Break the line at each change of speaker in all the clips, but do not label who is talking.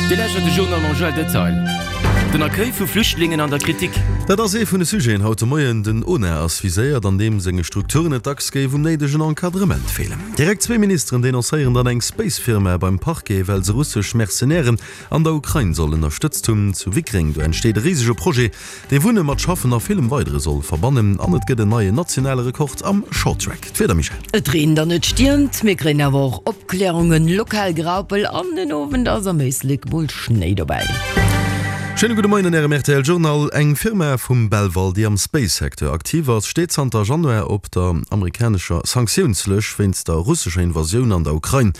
Dir lauschtert de Journal mam Joël Detail. Den Accueil vu Flüchtlingen an der Kritik.
Dat ass ee vun de Sujeten haut de Moien. Den ONA ass viséiert, an deem senge Strukturen et dacks géif um néidegen Encadrement feelen. Direkt zwee Ministeren denoncéieren dann eng Space-Firma beim Parquet, well se russesch Mercenairen an der Ukrain soll ënnerstëtzt hunn. Zu Wickreng, do entsteet e risege Projet, dee Wunne mat Schaffen a villem weidere soll verbannen. An et gëtt en neien nationale Rekord am Shorttrack. D'Wieder, Michèle?
Et reent an et stiermt, mir kréien awer och Opklärungen, lokal Graupel an den Owend ass am Éislek mol Schnéi dobäi.
Schéine gudde Moien an Ärem rtl Journal. Eng Firma vum Belval, déi am Space-Secteur aktiv ass, steet zanter Januar op der amerikanescher Sanktiounslëscht wéinst der russescher Invasioun an der Ukrain.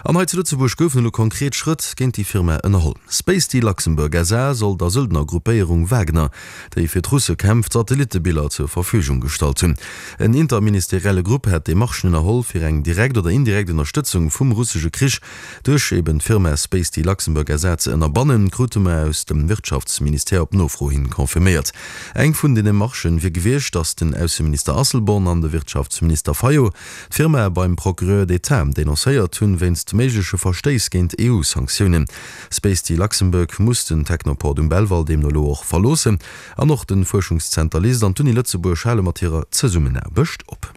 An hei zu Lëtzebuerg goufen elo konkret Schrëtt géint déi Firma ënnerholl. Spacety Luxembourg SA soll der Söldnergruppéierung Wagner déi fir d'Russe kämpft, Satellittebiller zur Verfügung gestallt hunn. En interministerielle Grupp hätt Demarchen ënnerholl, fir eng direkt oder indirekt Ënnerstëtzung vum russesche Krich duerch eben d'Firma Spacety Luxembourg SA ze ënnerbannen, krute mer aus dem Wirtschaftsministère op Nofro hin confirméiert. Eng vun den Demarchen wier gewiescht, datt den Ausseminister Asselborn an de Wirtschaftsminister Fayot d'Firma beim Procureur d'État denoncéiert hunn, wéinst méigleche Verstéiss géint EU-Sanktiounen. Spacety Luxembourg muss den Technoport um Belval deemno elo och verloossen an och de Fuerschungszenter LIST an d'Uni Lëtzebuerg hale mat hirer Zesummenaarbecht op.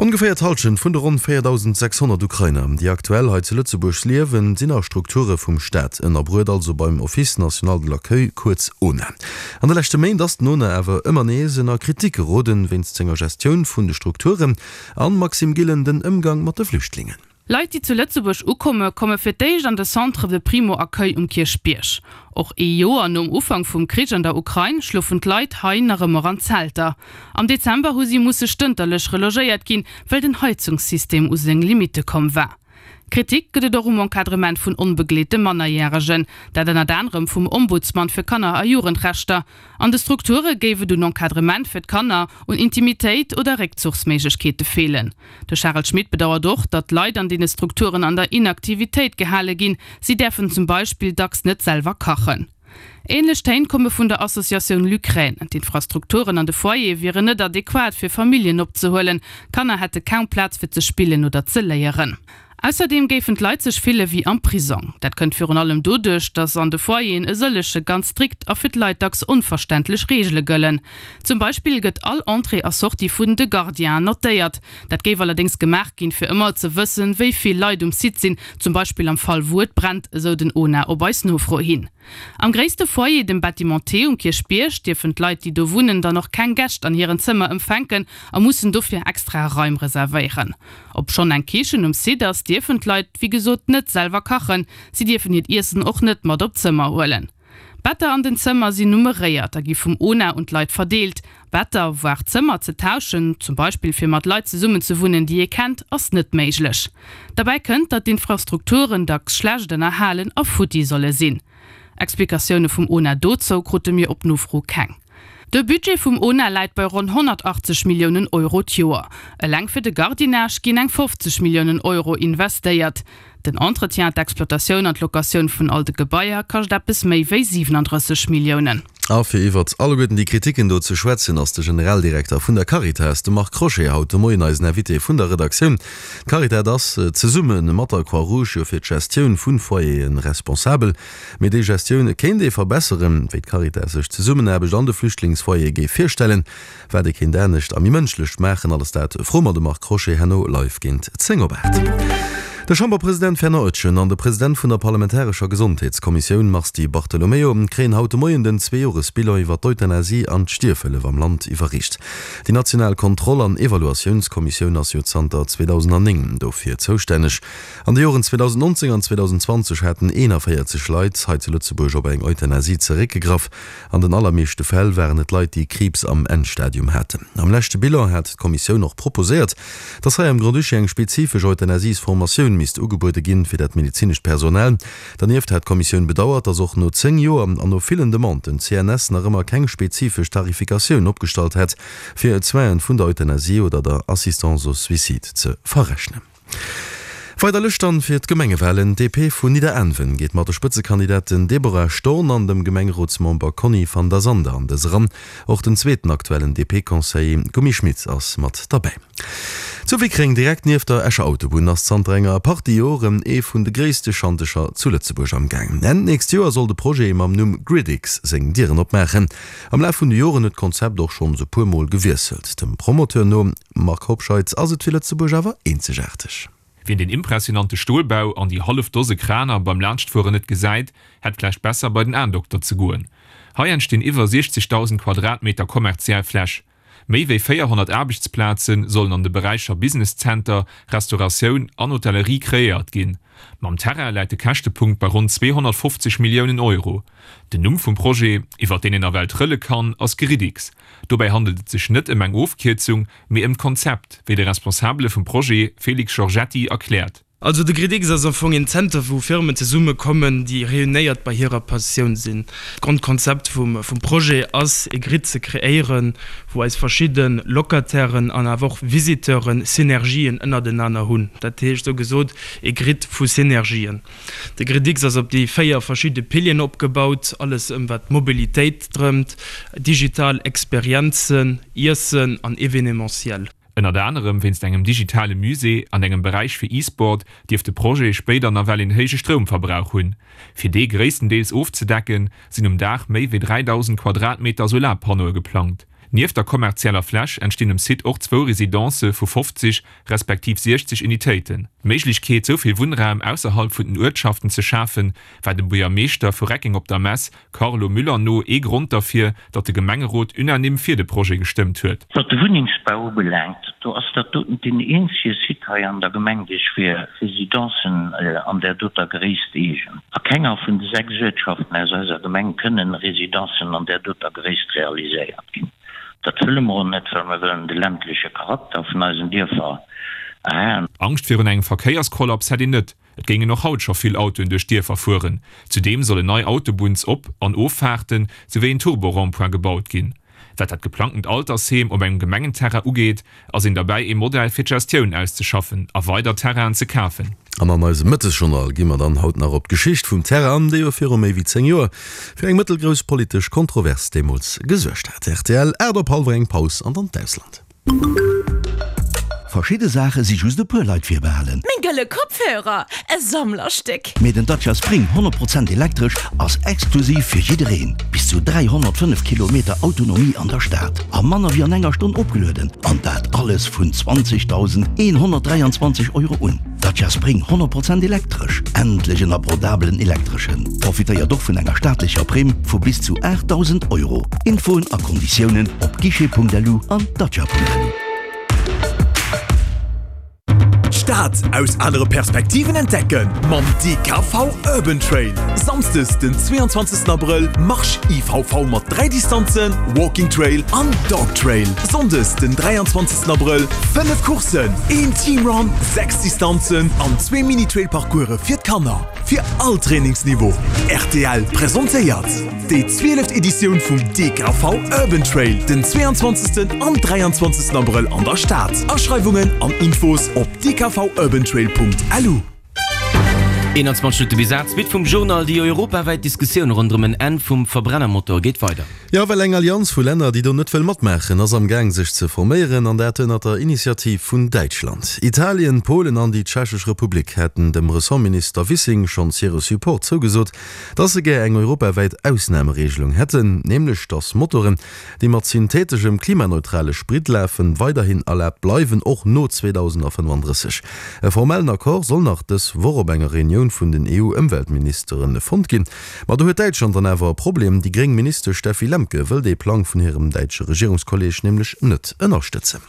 Ongeféier d'Hallschent vun de ronn 4.600 Ukrainer, déi aktuell hei zu Lëtzebuerg liewen, sinn a Strukture vum Staat ënnerbruet, also beim Office national de l'accueil, kuerz ONA. An de leschte Méint ass den ONA awer ëmmer nees ënner Kritik geroden, wéinst senger Gestioun vun de Strukturen an, Maxime Gillen, den Ëmgang mat de Flüchtlingen.
Leit, déi zu Lëtzebuerg ukomme, komme fir d'éischt an de Centre de Primo-Accueil um Kierchbierg. Och ee Joer nom Ufank vum Krich an der Ukrain schlofen d'Leit hei nach ëmmer an Zelter. Am Dezember hu si musse stënterlech relogéiert ginn, well den Heizungssystem u seng Limitte komm war. Kritik gëtt et och um Encadrement vun onbegleete Mannerjäregen, dat ënnert anerem vum Ombudsman fir Kanner a Jugendrechter. An de Strukture géif et un Encadrement fir d'Kanner, un Intimitéit oder Réckzuchsméiglechkeete feelen. De Charel Schmit bedauert och, datt d'Leit an deene Strukturen an der Inaktivitéit gehale ginn. Si däerfen zum Beispill dacks net selwer kachen. Änlech Téin komme vun der Associatioun L'Ukraine. D'Infrastrukturen an de Foyere wieren net adequat fir Familljen opzehuelen. Kanner hätte kaum Plaz fir ze spillen oder ze léieren. Ausserdeem géifen d'Leit sech fille wéi am Prisong. Dat kënnt virun allem doduerch, datt an de Foyeren e sëllege ganz strikt a fir d'Leit dacks onverständlech Reegele gëllen. Zum Beispill gëtt all Entrée a Sortie vun de Gardienen notéiert. Dat géif allerdéngs gemaach ginn, fir ëmmer ze wëssen, wéi vill Leit um Site sinn, zum Beispill am Fall wou et brennt, esou den ONA op eis Nofro hin. Am gréisste Foyer, dem Bâtiment T um Kierchbierg, dierfen d'Leit, déi do wunnen, dann och keng Gäscht an hiren Zëmmer empfänken a mussen dofir extra Raim reservéieren. Obschonn eng Kichen um Site ass, dierfen d'Leit wéi gesot net selwer kachen. Si dierfen hiert Iessen och net mat op d'Zëmmer huelen. D'Better an den Zëmmer sinn nummeréiert a gi vum ONA un d'Leit verdeelt. Better, voire Zëmmer ze tauschen, zum Beispill fir mat Leit zesummen ze wunnen, déi ee kennt, ass net méiglech. Derbäi kënnt, datt d'Infrastrukturen dacks schlecht ënnerhalen a futti solle sinn. Explikatioune vum ONA dozou krute mir op Nofro keng. De Budget vum ona läit bei ronn 180 Milliounen Euro d'Joer. Eleng fir de Gardiennage ginn eng 50 Milliounen Euro investéiert. Den Entretien, d'Exploitatioun an d'Locatioun vun all de Gebaier kascht eppes méi wéi 37 Milliounen.
A fir iwwert alleguerten déi Kritiken do ze schwätzen, ass de Generaldirekter vun der Caritas, de Marc Crochet, haut de Moien eisen Invité vun der Redaktioun. D'Caritas ass zesumme mat der Croix-Rouge jo fir d'Gestioun vu Foyere responsabel. Mee déi Gestioun kéint ee verbesseren, wéi d'Caritas sech d'Zesummenaarbecht an de Flüchtlingsfoyere géif virstellen, wat ee kéint anescht a méi mënschlech maachen, alles dat froe mer de Marc Crochet herno live géint 10 op 8. De Chamberpresident Fernand Etgen an de President vun der parlamentarescher Gesondheetskommissioun Mars Di Bartolomeo kréien haut de Moien den Zweejoresbilan iwwer d'Euthanasie an d'Stierfhëllef am Land iwwerreecht. Déi national Kontroll an Evaluatiounskommissioun ass jo zanter 2009 dofir zoustänneg. An de Joren 2019 an 2020 haten 41 Leit hei zu Lëtzebuerg op eng Euthanasie zeréckgegraff. An den allermeeschte Fäll waren et Leit, déi Kriibs am Endstadium haten. Am leschte Bilan hat d'Kommissioun och proposéiert, dass hei am Grand-Duché eng spezifesch Euthanasiesformatioun misst ugebuede ginn, fir dat medezinescht Personal. Dernieft hat d'Kommissioun bedauert, dass och no 10 Joer an no villen Demanden d'CNS nach ëmmer keng spezifesch Tarifikatioun opgestallt hätt, fir d'Soinen vun der Euthanasie oder der Assistance au suicide ze verrechnen. Weider Lëscht dann fir d'Gemengewalen, D'DP vun Nidderaanwen geet mat de Spëtzekandidaten Deborah Storn an dem Gemengerotsmember Conny van der Sande an dës eran. Och den zweeten aktuellen DP-Conseiller Gummi Schmit ass mat derbäi. Zu Wickreng, direkt nieft der Escher Autobunn, ass zanter enger Partie Joren ee vun de gréisste Schantecher zu Lëtzebuerg am Gaang. Enn d'nächst Joer soll de Projet mam Numm GridX seng Dieren opmaachen. Am Laf vun de Joren huet d'Konzept och schonns e puer Mol gewiesselt. Dem Promoteur no, Marc Hobscheit, ass et fir Lëtzebuerg awer eenzegaarteg.
Wien den impressionante Stolbau an déi hallef Dose Kraner beim Laanschtfueren net gesäit, hätt vläicht besser bei den Aendokter ze goen. Hei entstinn iwwer 60.000 Quadratmeter kommerziell Fläch. Méi wéi 400 Aarbechtsplaze sollen an de Beräicher Business Center, Restauratioun an Hotellerie kreéiert ginn. Mam Terrain läit de Käschtepunkt bei ronn 250 Milliounen Euro. Den Numm vum Projet, iwwer deen een nawell trëlle kann, ass Gridix. Dobäi handelt et sech net ëm eng Ofkierzung, mee ëm d'Konzept, wéi de Responsabele vum Projet, Félix Giorgetti, erkläert.
Also de Gridix ass am Fong een Zenter wou Firmen zesumme kommen, déi réunéiert bei hirer Passioun sinn. D'Grondkonzept vum Projet ass ee Grid ze kreéieren, wou eis verschidde Locatairen an awer och Visiteuren Synergien ënnertenaner hunn. Dat heescht esou gesot ee Grid vu Synergien. De Gridix ass op déi 4 verschidde Pilieren opgebaut, alles ëm wat d'Mobilitéit drëmt, digital Experienzen, Iessen an Evenementiel.
Ënnert anerem wéinst engem digitale Musée an engem Beräich fir E-Sport dierft de Projet spéider nawell een héije Stroumverbrauch hunn. Fir dee gréisstendeels ofzedecken, sinn um Daach méi wéi 3.000 Quadratmeter Solarpannoe geplangt. Nieft der kommerzieller Fläch entstinn um Site och zwou Residencë vu 50 respektiv 60 Unitéiten. D'Méiglechkeet, sou vill Wunnraum ausserhalb vun den Uertschaften ze schafen, war dem Buergermeeschter vu Reckeng op der Mess, Carlo Müller no ee Grond derfir, datt de Gemengerot unanime fir de Projet gestëmmt huet.
Wat de Wunnengsbau ubelaangt, do ass dat doten deen eenzege Site hei an der Gemeng, dee sech fir Residencen an där doter Gréisst eegent. A kenger vun de 6 Uertschaften aus eiser Gemeng kënnen Residencen an där doter Gréisst realiséiert ginn. Dat wëlle mer och net, well mer wëllen de ländleche Charakter vun eisen Dierfer erhalen.
Angscht virun engem Verkéierskollaps hätt een net. Et géingen och haut scho vill Autoen duerch d'Dierfer fueren. Zudeem sollen nei Autobunns-Op an Offaarten, souwéi een Turbo-Rond-point gebaut ginn. Wat dat geplangtent Altersheem op engem Gemengenterrain ugeet, ass een derbäi ee Modell fir d'Gestioun auszeschaffen a weider Terrainen ze kafen.
An an eisem Mëttesjournal gi mer dann haut nach op d'Geschicht vum Terrain an, déi jo viru méi wéi 10 Joer fir eng mëttelgrouss politesch Kontrovers deemools gesuergt hat. Rtl, 8 op hallwer eng Paus an dann d'Ausland.
Verschidde Saache si just e puer Leit virbehalen.
Meng gëlle Kopfhörer, e Sammlerstéck!
Mee den Dacia Spring 100 Prozent elektresch ass exklusiv fir jiddereen. Bis zu 305 Kilometer Autonomie an der Stad a manner wéi an enger Stonn opgelueden. An dat alles vun 20.123 Euro un. Dacia Spring 100 Prozent elektresch, endlech en abordabelen Elektreschen! Profitéiert och vun enger staatlecher Primm vu bis zu 8.000 Euro. Infoen a Konditiounen op guichet.lu an dacia.lu.
D'Stad aus anere Perspektiven entdecken mam DKV Urban Trail. Samsdes den 22 Abrëll Marsch IVV mat 3 Distanzen, Walking Trail an Dog Trail. Sonndes den 23 Abrëll 5 Courssen, een Team Run, 6 Distanzen an zwee Mini-Trail-Parcourse fir d'Kanner, fir all Trainingsniveau. Rtl presentéiert déi 12. Editioun vum DKV Urban Trail den 22. an 23. Abrëll an der Stad. Aschreiwungen an Infos op dkvurbantrail.lu.
21 Minutte bis 8, Suite vum Journal, Déi europawäit Diskussioun ronderëm en Enn vum Verbrennermotor geet weider.
Jo, well eng Allianz vu Länner, déi do net wëll matmaachen, ass am Gaang sech ze forméieren, an dat ënnert der Initiativ vun Däitschland. Italien, Polen an déi Tschechesch Republik hätten dem Ressortminister Wissing schonns hire Support zougesot, dass se gär eng europawäit Ausnamereegelung hätten, nämlech dass Motoren, déi mat syntheteschem klimaneutrale Sprit lafen, weiderhin erlaabt bleiwen, och no 2035. E formellen Accord soll nach dës Woch op enger Reunioun vun den EU-Ëmweltministere fonnt ginn. Ma do huet Däitschland dann awer e Problem, Déi gréng Ministesch Steffi Lemke wëll dee Plang vun hirem däitsche Regierungskolleeg nämlech net ënnerstëtzen.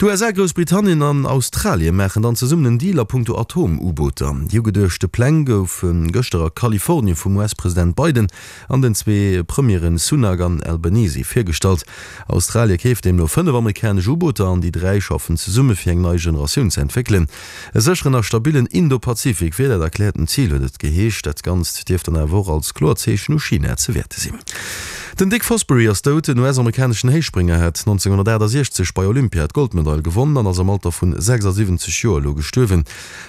D'USA, Groussbritannien an Australie maachen dann zesummen en Deal a punkto Atom-U-Booter. Déi ugeduechte Pläng goufe gëschter a Kalifornie vum US-President Biden an den zwee Premieren Sunak an Albanese virgestallt. Australie keeft deemno 5 amerikanesch U-Booter an déi 3 schaffen zesumme fir eng nei Generatioun ze entwéckelen. E sécheren a stabillen Indo-Pazifik wier dat erkläerten Zil, huet et geheescht. Dat Ganzt dierft dann awer och als kloert Zeechen u China ze wäerte sinn. Den Dick Fosbury ass dout. Den US-amerikaneschen Héichsprénger hat 1968 bei Olympia d'Goldmedail gewonnen an ass am Alter vun 76 Joer elo gestuerwen.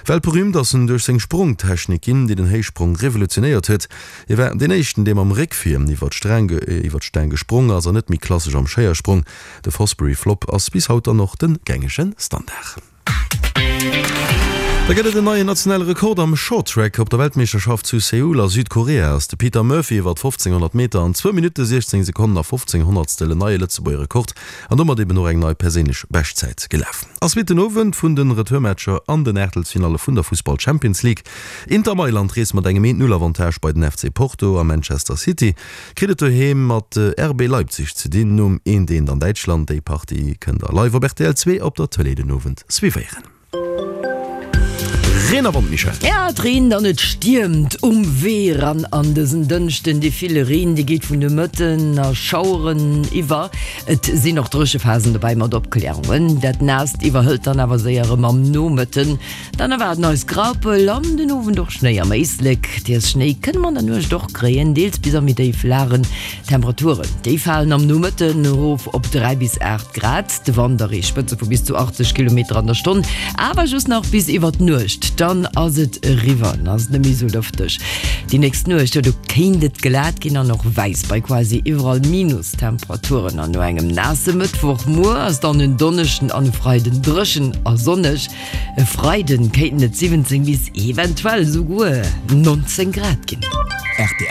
Weltberüümt ass en duerch seng Sprongtechnik ginn, déi den Héichsprong revolutionéiert huet. Hie war deen éischten, dee mam Réck vir iwwer d'Staang gesprong ass an net méi klassesch am Schéiersprong. De Fosbury Flop ass bis haut dann och de gängege Standard. Da gëtt et en neien nationale Rekord am Shorttrack. Op der Weltmeeschterschaft zu Seoul a Südkorea ass de Peter Murphy iwwer 1500 Meter an zwou Minutte, 16 Sekonnen a 15 Honnertstel en neie Lëtzebuerger Rekord an domat eben och eng nei perséinlech Beschtzäit gelaf. Ass Suite den Owend vun de Retourmatcher an den Aachtelsfinalle vun der Fussball Champions League. Inter Mailand reest mat engem Eent-Null-Avantage bei den FC Porto a Manchester City kritt et doheem mat RB Leipzig ze dinn. Nom eent eent an Däitschland. Déi Partie kënnt der live op rtl 2 op der Tëlee den Owend suivéieren. Reen a Wand, Michèle.
Ja, et reent an et stiermt um Wee eran an dësen Dënschden. Dee ville Reen, dee geet vun de Mëtten a Schaueren iwwer. Et sinn och Dréchephasen dobäi mat Opklärungen. Dat Naasst iwwerhëlt dann awer séier erëm am Nomëtten. Dann erwaarden eis Graupel an den Owend och Schnéi am Éislek. Deels Schnéi kënne mer an der Nuecht och kréien, deels bis a méi déif Lagen. D'Temperaturen, déi falen am Nomëtten erof op 3 bis 8 Grad. De Wand erreecht Spëtze vu bis zu 80 Kilometer an der Stonn, awer just nach bis iwwer d'Nuecht. Dann ass et eriwwer, dann ass et net méi esou lëfteg. Déi nächst Nuecht, jo do kéint et glat ginn an och wäiss bei quasi iwwerall Minustemperaturen. An no engem naasse Mëttwochmuer ass dann en Donneschden an e Freiden dréchen a sonneg. E Freiden kéinten et 17 bis eventuell esouguer 19 Grad ginn.
Rtl.